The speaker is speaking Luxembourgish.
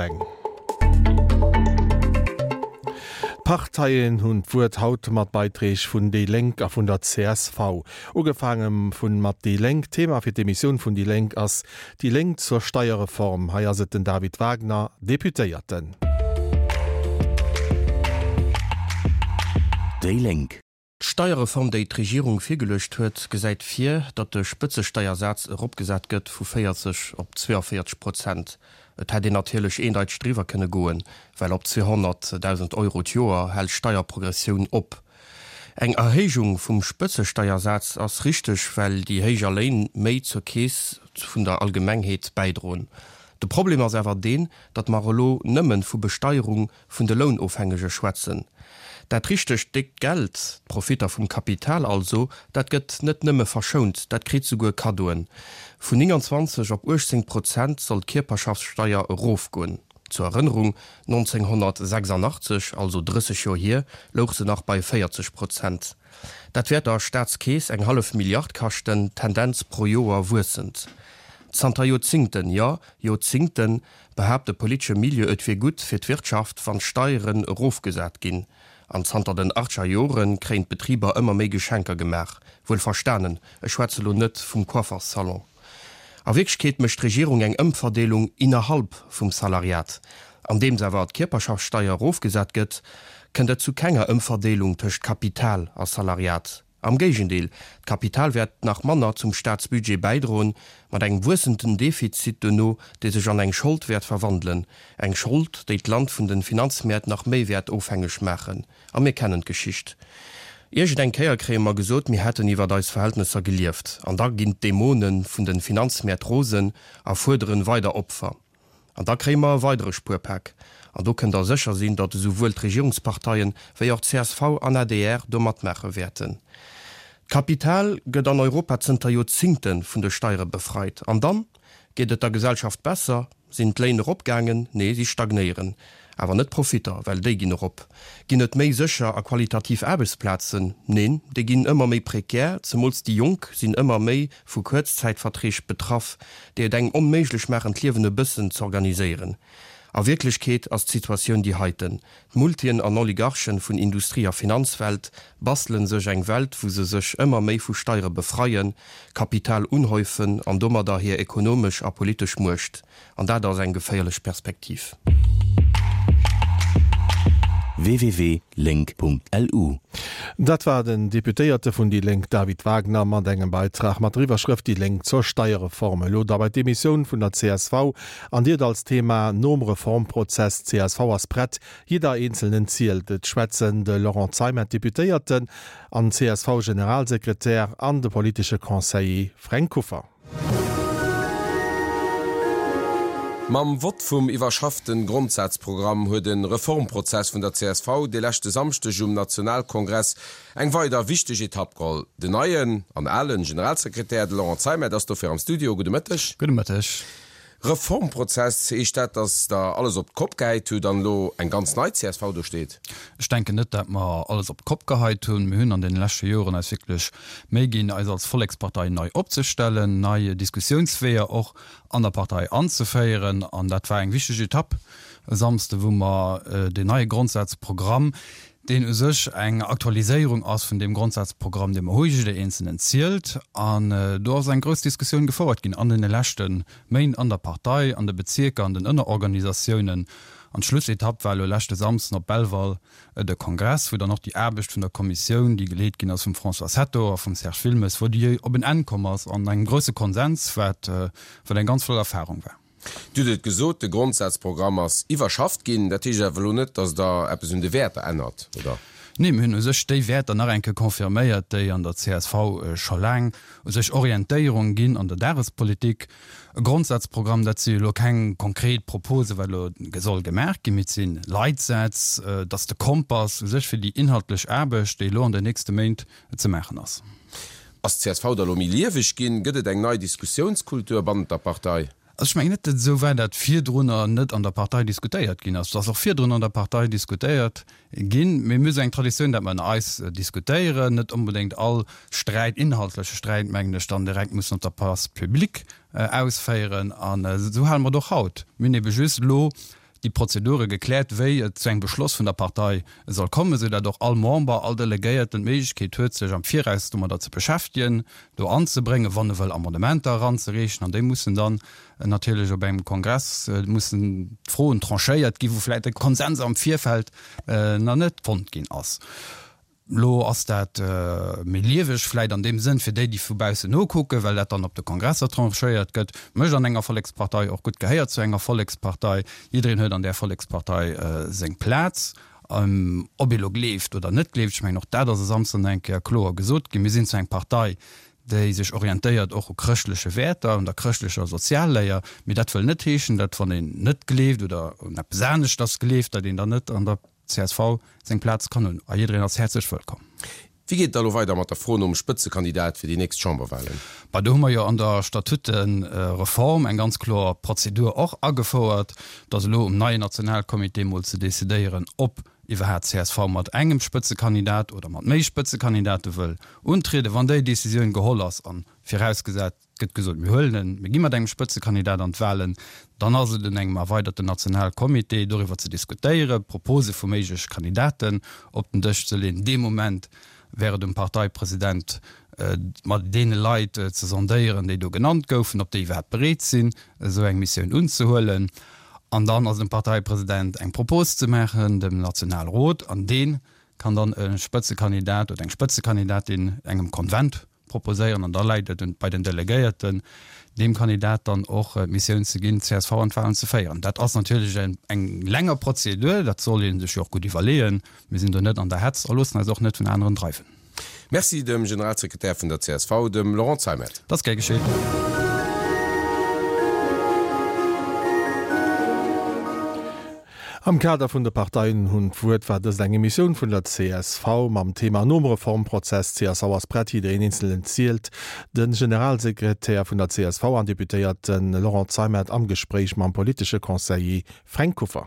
Eng. D'Parteien hunn d'Wuert haut mat Beiträg vun déi Lénk a vun der csv. Ugefaange vun mat déi Lénk. Thema fir d'Emissioun vun déi Lénk ass Déi Lénk zur Steierreform. Hei ass et den David Wagner, Deputéierten. Déi Lénk. D'Steierreform, déi d'Regierung virgeluecht huet, gesäit vir, datt de Spëtzesteiersaz eropgesat gëtt vu 40 op 42 Prozent. Et hätt een natierlech eendeiteg driwwer kënne goen, well op 200.000 Euro d'Joer hält d'Steierprogressioun op. Eng Erhéijung vum Spëtzesteiersaz ass richteg, well déi héijer Léin méi zur Keess vun der Allgemengheet bäidroen. De Problem ass awer deen, datt mer elo nëmme vu Besteierung vun de Lounofhängege schwätzen. Dat richtegt déckt Geld, d'Profitter vum Kapital also, dat gëtt net nëmme verschount, dat kritt souguer Kaddoen. Vun 29 op 18 Prozent soll d'Kierperschaftssteier erofgoen. Zur Erënnerung, 1986, also 30 Joer hier, louch se nach bei 40 Prozent. Dat wäert der Staatskeess eng hallef Milliard kaschten, Tendenz pro Joer wuessend. Zanter Joerzingten, jo, Joerzingten, behaapt de politesche Milieu, et wier gutt fir d'Wirtschaft, wann d'Steieren erofgesat ginn. An zanter den achtzeger Jore kréien d'Betriber ëmmer méi Geschenker gemaach. Wuel verstanen, ech schwätze lo net vum Coifferssalon. A Wierklechkeet mécht d'Regierung eng Ëmverdeelung innerhalb vum Salariat. Andeems awer d'Kierperschaftssteier erofgesat gëtt, kënnt et zu kenger Ëmverdeelung tëscht Kapital a Salariat. Am Géigendeel, d'Kapital wäert nach manner zum Staatsbudget bäidroen, mat engem wuessenden Defizit duerno, dee sech an eng Schold wäert verwandelen, eng Schold, déi d'Land vun de Finanzmäert nach méi wäert ofhängeg maachen. A mir kennen d'Geschicht. Iergend eng Kéier kréie mer gesot, mir hätten iwwert eis Verhältnesser gelieft, an da ginn d'Dämone vun de Finanzmäert rosen a fuerderen weider Opfer. An da kréie mer e weidere Spuerpak. An do kënnt Der sécher sinn, datt esouwuel d'Regierungsparteien wéi och csv an adr do matmaache wäerten. D'Kapital gëtt an Europa zënter Joerzingte vun de Steiere befreit. An dann? Geet et der Gesellschaft besser? Sinn d'Léin eropgaangen? Nee, si stagnéieren. Awer net d'Profitter, well déi ginn erop. Ginn et méi sécher a qualitativ Aarbechtsplazen? Neen, déi ginn ëmmer méi prekär. Zemools déi Jonk sinn ëmmer méi vu Kuerzzäitverträg betraff, déi et engem onméiglech maachen, d'Liewen e bëssen z'organiséieren. A Wierklechkeet ass d'Situatioun déi heiten, D'Multien an Oligarchen vun Industrie a Finanzwelt bastelen sech eng Welt, wou se sech ëmmer méi vu Steiere befreien, Kapital unhäufen an domadder hir ekonomesch a politesch Muecht An dat ass eng geféierlech Perspektiv. www.lénk.lu. Dat war den Deputéierte vun déi Lénk David Wagner mat engem Beitrag mat der Iwwerschrëft Déi Lénk zur Steierreform. Elo da bei d'Emissioun vun der csv an Dir et als Thema Nom Reformprozess, csv ass prett, jidder Eenzelnen zielt. Et schwätzen de Laurent Zeimet, Deputéierten an CSV-Generalsekretär an de politesche Conseiller Fränk Kuffer. Mam Vott vum iwwerschafften Grondsazprogramm huet de Reformprozess vun der csv de leschte Samschdeg um Nationalkongress eng weider wichteg Etapp geholl. Den neien an alen Generalsekretär, de Laurent Zeimet, ass dofir am Studio. Gudde Mëtteg. Gudde Mëtteg. Reformprozess, heescht dat, datt Der alles op d'Kopp gehäit hutt an elo eng ganz nei csv do steet? Ech denken net, dat mer alles op d'Kopp geheit hunn. Mir hunn an deene leschte Joren eis wierklech Méi ginn, eis als Vollekspartei nei opzestellen, nei Diskussiounsweeër och an der Partei anzeféieren. An dat war eng wichteg Etapp e Samsde, wou mer deen neie Grondsazprogramm, deen u sech eng Aktualiséierung ass vun deem Grondsazprogramm, dee mer hu, Jidder Eenzelnen zielt. An do ass eng grouss Diskussioun gefouert ginn an deene leschte Méint an der Partei, an de Bezierker, an den Ënnerorganisatiounen. An d'Schlussetapp war elo leschte Samsden op Belval de Kongress, wou dann och déi Aarbecht vun der Kommissioun, déi geleet ginn ass vum François Hetto a vum Serge Wilmes, wou déi op en Enn komm ass an engem grousse Konsens, wat wat eng ganz flott Erfahrung war. Dir hutt et gesot, de Grondsazprogramm ass iwwerschafft ginn. Dat heescht awer elo net, datt Der eppes un de Wäerter ännert, oder? Nee, mir hunn u sech déi Wäerter nach eng Kéier confirméiert, déi an der csv scho laang u sech Orientéierung ginn an der Dagespolitik. E Grondsazprogramm, dat si elo keng konkret Propose wat elo soll gemaach ginn, mee et si Leitsätz, et ass de Kompass u sech fir déi inhaltlech Aarbecht, déi elo an den nächste Méint ze maachen ass. Ass d'CSV da lo méi lieweg ginn? Gëtt et eng nei Diskussiounskultur bannent der Partei? Also ech mengen net, datt et esou war, datt virdrunner net an der Partei diskutéiert ginn ass. Et ass och virdrun an der Partei diskutéiert ginn. Mee mir hu sou eng Traditioun, datt mer ënner eis diskutéieren, net onbedéngt all Sträit, inhaltleche Sträit, mengen ech, dann direkt mussen op der Place publique ausféieren. An esou hale mer et och haut. Mir hunn ebe just elo. Déi Prozedure gekläert, wéi et zu engem Beschloss vun der Partei soll kommen, esou dat och all Member, all Delegéierten d'Méiglechkeet huet, sech am Viraus domadder ze beschäftegen, do anzebréngen, wann e wëll Amendementer eranzereechen. An déi mussen dann natierlech op engem Kongress mussen d'Froen tranchéiert ginn, wou vläicht e Konsens am Virfeld nach net fonnt ginn ass. Lo ass dat méi lieweg vläit an deem Sënn fir déi, déi vu baussen nokucken, well dat dann op de Kongresser tranchéiert gëtt. Mécht an enger Vollekspartei och gutt, gehéiert zu enger Vollekspartei. Jiddereen huet an där Vollekspartei seng Plaz, ob ee lo gleeft oder net gleeft. Ech mengen, och dat ass e Samsden eng Kéier kloer gesot ginn. Mir sinn zwar eng Partei, déi sech orientéiert och u chrëschtleche Wäerter, un der chrëschtlecher Sozialléier, mee dat wëll net heeschen, datt wann een net gleeft oder un eppes aneschters gleeft, datt een dann net an der Csv seng Plaz kann hunn a jiddereen ass häerzlech wëllkomm. Wéi geet et da lo weider mat der Fro nom Spëtzekandidat fir déi nächst Chamberwahlen? Bah, do hu mer jo an der Statutereform eng ganz kloer Prozedur och agefouert, dass elo um neien Nationalcomité mol ze decidéieren, ob iwwerhaat csv mat engem Spëtzekandidat oder mat méi Spëtzekandidate wëll untrieden. Wann déi Decisioun geholl ass, an virausgesat, Et gëtt gesot, mir huelen en, mir gi mat engem Spëtzekandidat an d'Wahlen. Dann ass et un engem erweiderten Nationalcomité, doriwwer ze diskutéieren, Propose vu méigleche Kandidaten op den Dësch ze leeën. Dee Moment wär et um Parteipresident, mat deene Leit ze sondéieren, déi do genannt goufen, ob déi iwwerhaapt bereet sinn, esou eng Missioun unzehuelen. An dann ass et um Parteipresident, eng Propos ze maachen dem Nationalrot, an dee kann dann e Spëtzekandidat oder eng Spëtzekandidatin engem Konvent proposéieren an da läit et bei den Delegéierten, deem Kandidat dann och d'Missioun ze ginn, d'CSV an d'Wahlen ze féieren. Dat ass natierlech eng länger Prozedur, dat soll ee sech jo och gutt iwwerleeën. Mir sinn do net an der Hetz a loossen eis och net vun aneren dreiwen. Merci dem Generalsekretär vun der csv, dem Laurent Zeimet. Dat ass gär geschéit. Am Kader vun de Parteien hunn d'Wuert war dëst eng Emissioun vun der csv mam Thema Nom Reformprozess, csv ass prett, jiddereen eenzelen zielt. De Generalsekretär vun der csv an Deputéierte Laurent Zeimet am Gespréich mam politesche Conseiller Fränk Kuffer.